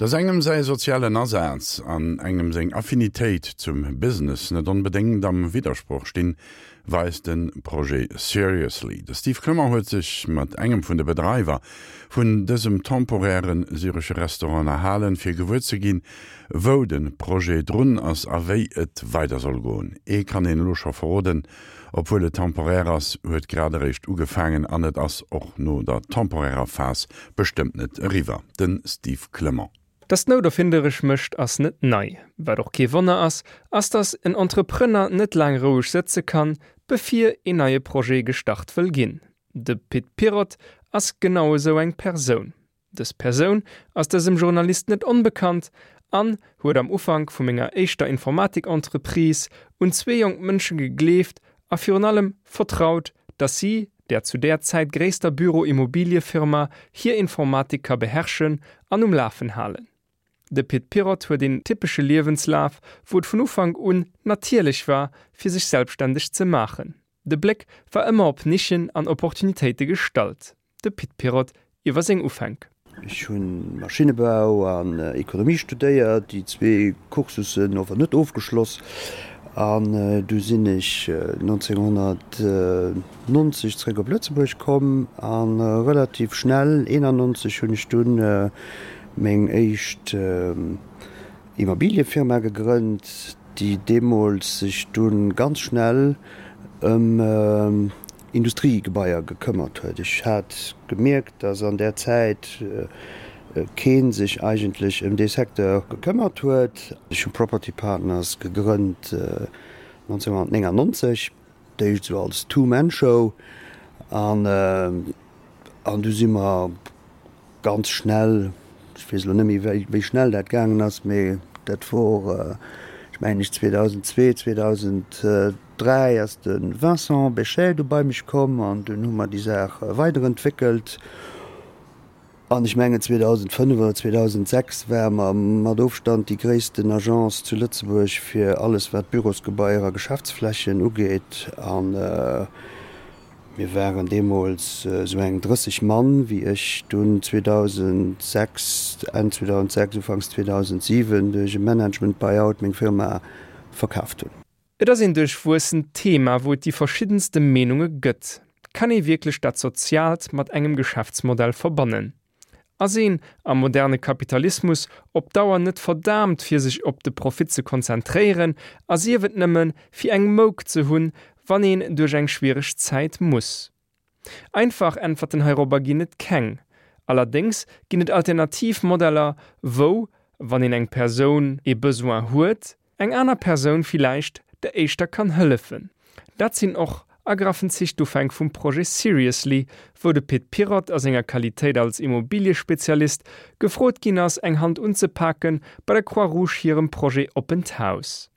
Dass engem säi sozialen Asaz an engem seng Affinitéit zum Business net onbedéngt am Widdersproch stinn, weist de Projet Seriously. De Steve Clement huet sech mat engem vun de Bedreiwer vun dësem temporäre syresche Restaurant ënnerhalen, fir gewuer ze ginn, wou de Projet drun ass a wéi et weider soll goen. Ee kann een elo scho verroden, Obwuel et temporär ass, huet grad eréischt ugefaangen an et ass och no der temporärer Phas bestëmmt net eriwwer. De Steve Clement. Dass d'Nout erfinderesch mécht, ass net nei. Wat och kee Wonner ass, ass dass en Entrepreneur net laang roueg sëtze kann, bevir een neie Projet gestart wëll ginn. De Pit Pirotte ass genau esou eng Persoun. Dës Persoun ass dësem Journalist net onbekannt an huet am Ufank vu menger éischter Informatik-Entreprise un zwee jonk Mënsche gegleeft a virun allem vertraut, dass si der zu där Zäit gréisster Büro-Immobiliefirma hir Informatik ka beherrschen an um Lafen halen. De Pit Pirotte huet een typesche Liewenslaf, wou et vun Ufank un natierlech war, fir sech selbstständeg ze maachen. De Bléck war ëmmer op Nischen an Opportunitéite gestallt. De Pit Pirotte iwwer seng Ufänk. Ech hu Maschinnebau an Ekonomie studéiert, déi zwee Cursussen ower net ofgeschloss. An du sinn ech 1990 zréck op Lëtzebuerg komm a relativ schnell, 91, hunn ech dunn meng éischt Immobiliëfirma gegrënnt, déi deemools sech dunn ganz schnell ëm Industriegebaier gekëmmert huet. Ech hat gemierkt, dass an där Zäit kee sech eigentlech ëm dee Secteur gekëmmert huet. Ech hu Property Partners gegrënnt 1999, d'éischt esou als Two-Man-Show an du si mer Ganz schnell, ech weess elo net méi wéi schnell dat gaangen ass, mee dat wor, ech mengen ech 2002, 2003 ass de Vincent Bechet du bei mech komm an dunn hu mer déi Saach weiderentwéckelt. An ech mengen 2005 oder 2006 ware mer mat Ofstand déi gréissten Agence zu Lëtzebuerg fir alles wat Bürosgebaier a Geschäftsflächen ugeet. An Mir waren deemools esou eng 30 Mann, wéi ech dunn 2006, Enn 2006, Ufanks 2007 duerch e Management Buy-out meng Firma verkaaft hunn. Et ass een duerchwuessent Thema, wou et déi verschiddenste Meenunge gëtt. Kann ee wierklech dat Soziaalt mat engem Geschäftsmodell verbannen? Ass een am moderne Kapitalismus op Dauer net verdaamt fir sech op de Profit ze konzentréieren a sief et nëmme fir eng Mouk ze hunn, wann een duerch eng schwiereg Zäit muss? Einfach Äntwerten heirobber ginn et keng. Allerdéngs ginn et alternativ Modeller, wou, wann een eng Persoun ee Besoin huet, eng aner Persoun villäicht der éischter kann hëllefen. Dat sinn och a graffen Zich d'Ufänk vum Projet Seriously, wou de Pit Pirotte a senger Qualitéit als Immobiliespezialist gefrot ginn ass, eng Hand unzepake bei der Croix Rouge hirem Projet Oppent Haus.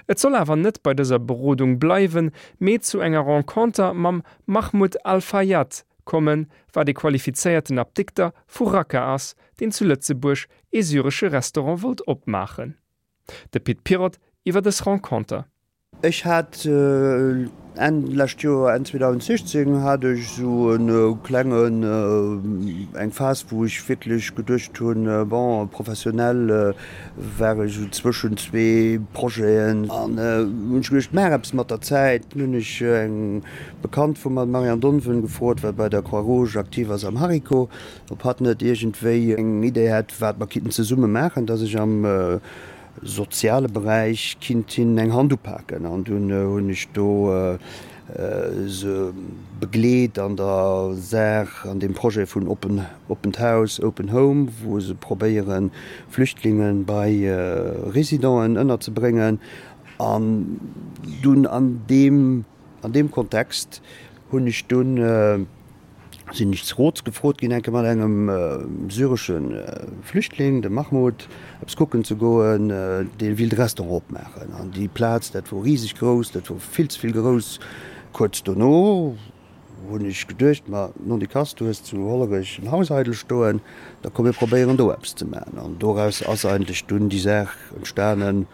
Et soll awer net bei dëser Berodung bleiwen, mee zu enger Renconter mam Mahmoud Al-Fayyad kommen, wat ee qualifizéierten Apdikter vu Raqqa ass, deen zu Lëtzebuerg ee syresche Restaurant wollt opmaachen. De Pit Pirotte iwwer dës Renconter. Ech hat Enn lescht Joer, Enn 2016 hat ech esou e klengen, eng Phas wou ech wierklech geduecht hunn, bon professionell war ech esou zwëschen zwee Projeten an hunn ech geduecht, maach eppes mat der Zäit. Dunn hunn ech eng Bekannt vu mer, d'Marianne Donven, gefrot, wat bei der Croix Rouge aktiv ass am Hariko, Ob hatt net iergendwéi eng Idee hätt, wat mer kinnten zesumme maachen, dass ech am soziale Beräich kinnt hinnen eng Hand upaken. An dunn hunn ech do se begleet an der Saach, an deem Projet vun Open, Oppent Haus, Open Home, wou se probéieren, Flüchtlinge bei Residenten ënnerzebréngen. An dunn an deem, an deem Kontext hunn ech dunn, sinn ech zu Roz gefrot ginn, eng Kéier mat engem syresche Flüchtling, dem Mahmoud, eppes kucken ze goen, dee willt e Restaurant opmaachen. An déi Plaz, dat wor riseg grouss, dat wor vill ze vill grouss. Kuerz dono hunn ech geduecht, ma nondikass, du hues zu Hollerech en Haus eidel stoen, da komm mir probéieren do eppes ze maachen. An doraus ass eigentlech dunn déi Saach entstanen,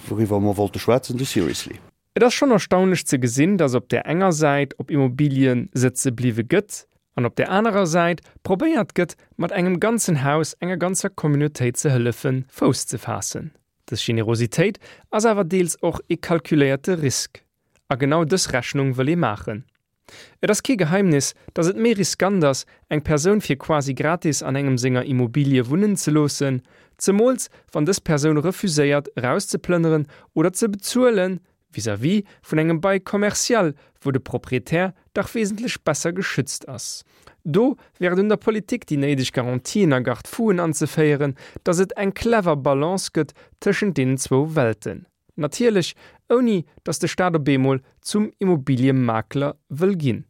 wouriwwer mer wollte schwätzen, de Seriously. Et ass schonn erstaunlech ze gesinn, dass op där enger Säit op Immobilien sëtze bliwwe gëtt. An op där anerer Säit probéiert gëtt, mat engem ganzen Haus enger ganzer Communautéit ze hëllefen, Fouss ze faassen. Dës Generositéit ass awer deels och ee kalkuléierte Risk. A genau dës Rechnung wëll ee maachen. Et ass kee Geheimnis, datt et méi riskant ass, eng Persoun fir quasi gratis an engem senger Immobilie wunnen ze loossen, zemools wann dës Persoun refuséiert erauszeplënneren oder ze bezuelen, vis-à-vis vun engem Bail commercial, wou de Proprietär dach wesentlech besser geschützt ass. Do wär et un der Politik, déi néideg Garantien a Garde-fouen anzeféieren, datt et eng clever Balance gëtt tëschent deenen zwou Welten. Natierlech ouni datt de Staat op eemol zum Immobiliemakler wëll ginn.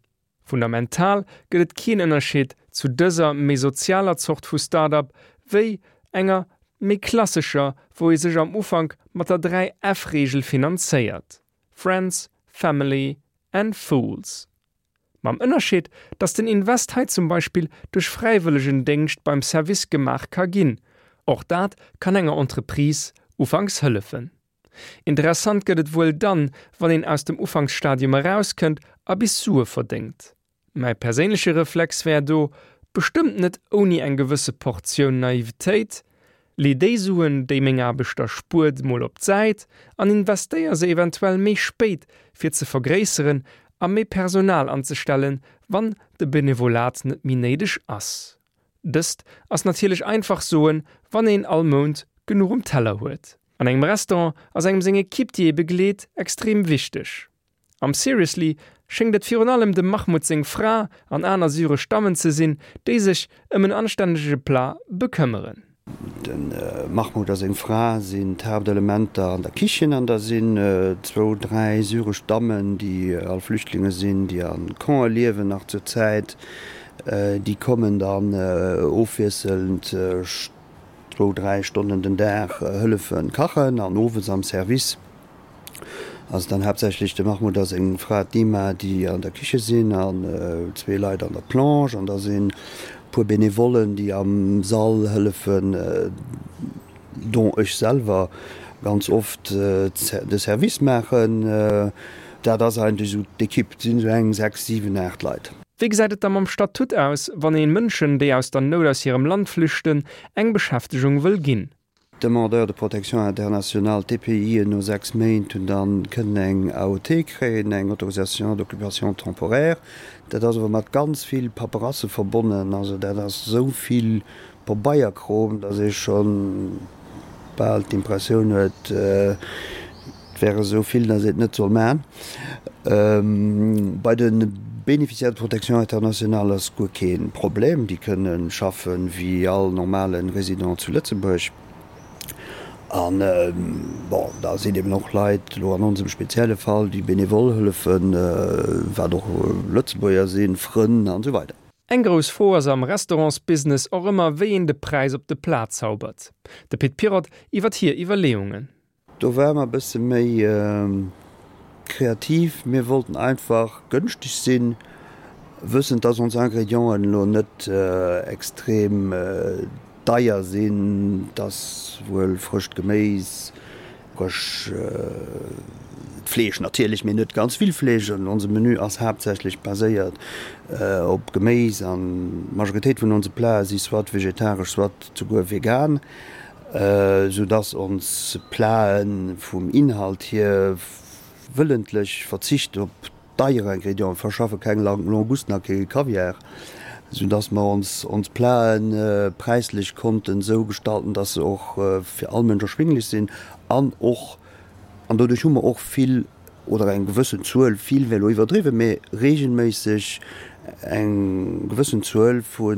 Fundamental gëtt et keen Ënnerscheed zu dëser méi sozialer Zort vu Start-up wéi enger méi klassescher, wou ee sech am Ufank mat der 3 F-Reegel finanzéiert, Friends, Family and Fools. Mam Ënnerscheed, datt den Invest hei zum Beispill duerch Fräiwëllegendéngscht beim Service gemaach ka ginn. Och dat kann enger Entreprise ufanks hëllefen. Interessant gëtt et wuel dann, wann een aus dem Ufanksstadium erauskënnt a bis Sue verdéngt. Mäi perséinleche Reflex wär do, bestëmmt net ouni eng gewësse Portioun Naivetéit, Lee déi Suen, déi meng Aarbecht der spuert, mol op d'Säit an investéier se eventuell méi spéit, fir ze vergréisseren a méi Personal anzestellen, wann de Benevolat net méi néideg ass. Dëst ass natierlech einfach soen, wann een all Mount genuch um Teller huet. An engem Restaurant ass engem seng Ekipp, déi ee begleet, extrem wichteg. Am Seriously schéngt et virun allem dem Mahmoud seng Fra an aner syresch Dammen ze sinn, déi sech ëm en anstännege Plat bekëmmeren. De Mahmoud a seng Fra sinn d'Haaptelementer an der Kichen an da sinn zwou, dräi syresch Dammen, déi all Flüchtlinge sinn, déi a Campe liewen nach zur Zäit. Déi kommen dann ofwiesselnd zwou, dräi Stonnen den Dag hëllefe kachen an owes am Service. Ass dann haaptsächlech de Mahmoud a seng Fra d'Nima, déi an der Kiche sinn, an zwee Leit an der Plonge, an da sinn e puer Benevollen, déi am Sall hëllefen, dont ech selwer ganz oft de Service maachen. Dat ass eigentlech esou d'Ekipp, et sinn esou eng 6, 7, 8 Leit. Wéi gesäit et da mam Statut aus, wann ee Mënschen, déi aus der Nout aus hirem Land flüchten, eng Beschäftegung wëll ginn? D'Demandeurs de protection internationale, d'DPIen, no 6 Méint hunn dann kënnen eng AOT kréien, eng Autorisation d'occupation temporaire. Dat ass awer mat ganz vill Paperasse verbonnen. Also dat ass esou vill Pabeierkrom, datt ee scho bal d'Impressioun huet, Et wär esou vill, datt een et net soll maachen. Bei de Bénéficiaires de protection internationale ass guer kee Problem. Déi kënne schaffe wéi all normale Résident zu Lëtzebuerg. An, bon, da sinn eben och Leit, elo an onsem spezielle Fall, déi benevol hëllefen, wat och Lëtzebuerger sinn, Frënn an esou weider. Eng grouss Fro ass am Restaurantsbusiness och ëmmer, wéi een de Präis op de Plat zaubert. De Pit Pirotte iwwert hir Iwwerleeungen. Do ware mer e bësse méi kreativ. Mir wollten einfach gënschteg sinn, wëssend, dass ons Ingredienten elo net extrem deier sinn. Et ass wuel frëscht Geméis, frësch Fleesch natierlech, mee net ganz vill Fleesch. An onse Menü ass haaptsächlech baséiert op Geméis an d'Majoritéit vun onse Plate si soit vegetaresch, soit souguer vegan. Sou dass ons Platen vum Inhalt hier wëllentlech verzicht op deier Ingrédienten, verschaffe keng Langusten a kee Kaviar, sou dass mer ons ons Platen präislech konnten sou gestalten, dass se och fir all Mënsch erschwinglech sinn an och, an doduerch hu mer och vill oder eng gewëssen Zuel, vill wär elo iwwerdriwwen, mee regelméisseg eng gewëssen Zuel vu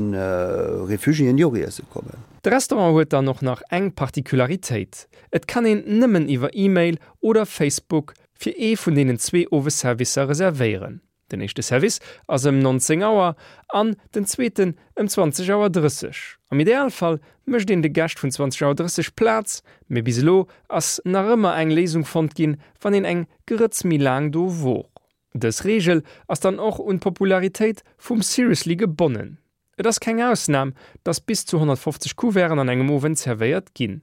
Réfugiéen, déi och iesse kommen. De Restaurant huet dann och nach eng Particularitéit, Et kann een nëmmen iwwer E-Mail oder Facebook fir ee vun deenen zwee Owesservicer reservéieren. Den éischte Service ass ëm 19 Auer an den zweeten ëm 20 Auer 30. Am Idealfall mécht een de Gäscht vun 20 Auer 30 Plaz, mee bis elo ass nach ëmmer eng Léisung fonnt ginn, wann een eng Grëtz méi laang do wor. Dës Reegel ass dann och un d'Popularitéit vum Seriously gebonnen. Et ass keng Ausnam, dass bis zu 150 Couverten an engem Owend zerwéiert ginn.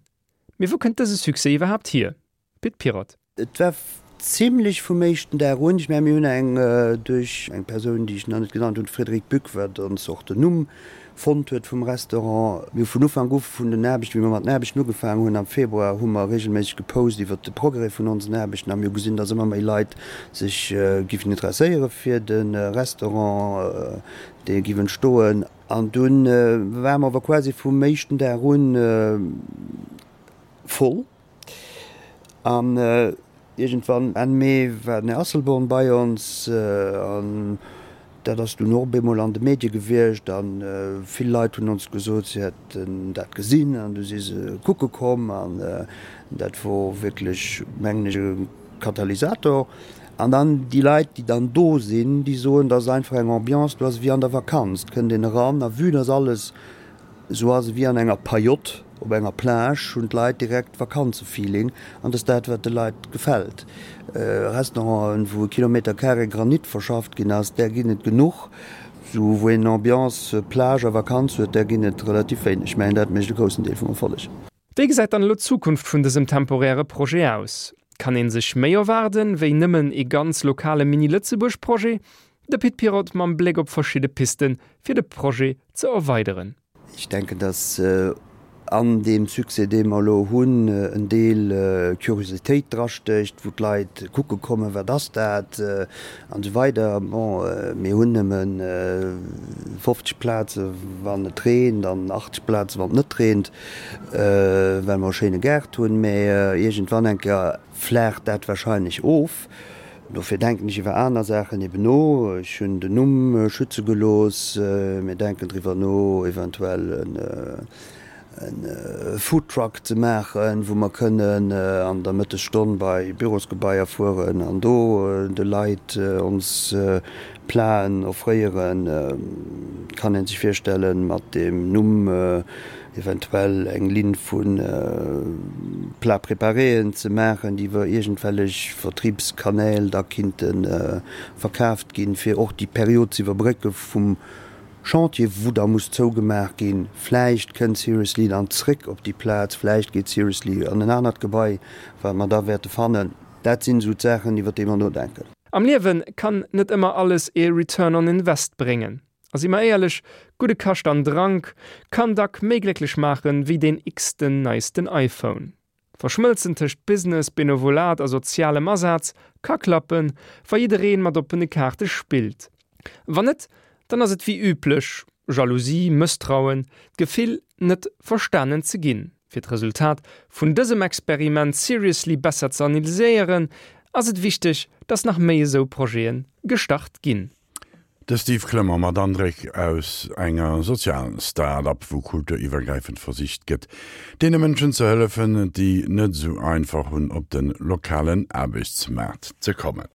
Mee wou kënnt dëse Succès iwwerhaapt hier? Pit Pirotte. Et war. Zimlech vum éischten Dag un. Ech mengen, mir hunn eng duerch eng Persoun, déi ech nach net genannt hunn, d'Frédérique Buck, wat ons och den Numm fonnt huet vum Restaurant. Mir hu vun Ufank u vun den Aarbechten, wéi mer mat den Aarbechten ugefaangen hunn am Februar, hu mer regelméisseg gepost iwwert de Progrès vun onsen Aarbechten a mir hu gesinn, dass ëmmer méi Leit sech giffen interesséiere fir de Restaurant, dee giff entstoen. An dunn ware mer awer quasi vum éischten Dag un voll. An iergendwann Enn Mee war den Här Asselborn bei ons an dat ass dunn och op eemol an de Medie gewiescht a vill Leit hunn ons gesot, si hätten dat gesinn an du si se kucke komm an dat wor wierklech, mengen ech, e Katalysator. An dann déi Leit, déi dann do sinn, déi soen, dat ass einfach eng Ambiance, do ass ewéi an der Vakanz, et kënnt een eran a vue dass alles Esou ass et wéi an enger Pajott op enger Plage, hunn d'Leit direkt Vakanzefeeling an dat ass dat, wat de Leit gefält. Restauranten, wou e Kilometer carré Granit verschafft ginn ass, där ginn et genuch. Esou wou een Ambiance Plage a Vakanz huet, där ginn et relativ wéineg. Ech mengen, dat mécht e groussen Deel vum Erfolleg. Wéi gesäit dann elo d'Zukunft vun dësem temporäre Projet aus? Kann een sech méi erwaarden, wéi nëmmen ee ganz lokale Mini-Lëtzebuerg-Projet? De Pit Pirotte mam Bléck op verschidde Pisten, fir de Projet ze erweideren. Ech denken, datt an deem Succès, dee mer elo hunn, en Deel Curiositéit drastécht, wou d'Leit kucke kommen, wat ass dat an esou weider. Bon, mir hunn nëmme 50 Plaze wann et reent an 80 Plaze wann et net reent, well mer e schéine Gaart hunn. Mä iergendwann eng Kéier Flaacht dat wahrscheinlech of. Dofir denken ech iwwer aner Saachen eben no. Ech hunn den Numm schütze gelooss. Mir denken driwwer no, eventuell e Foodtruck ze maachen, wou mer kënnen an der Mëttesstonn bei Bürosgebaier fueren an do de Leit ons Platen offréieren. Kann ee sech virstellen, mat deem Numm eventuell eng Linn vu Plats préparéen ze maachen, déi iwwer iergendwellech Vertriebskanäl da kinnte verkaaft ginn, fir och déi Period ze iwwerbrécke vum Chantier, wou da muss zougemaach ginn. Vläicht kënnt Seriously dann zréck op déi Plaz, vläicht geet Seriously an en anert Gebai, wat mer da wäerte fannen. Dat sinn esou d'Saachen, iwwer déi mer nodenken. Am Liewe kann net ëmmer alles ee Return on Invest bréngen. A si mer éierlech, gudde Kascht an Drank kann dack méi glécklech maachen, wéi deen x-ten neisten iPhone. D'Verschmëlzen tëscht Business, Benevolat a sozialem Asaz ka klappen, wa jiddereen mat oppene Kaarte spillt. Wann net, dann ass et wéi üblech, Jalousie, Mësstrauen, d'Gefill, net verstanen ze ginn. Fir d'Resultat vun dësem Experiment Seriously besser ze analyséieren, ass et wichteg, dass nach méi esou Projete gestart ginn. De Steve Clement mat Andréck aus enger Sozial-Start-up, wou kulturiwwergräifend versicht gëtt, deene Mënschen ze hëllefen, déi net esou einfach hunn, op de lokalen Aarbechtsmaart ze kommen.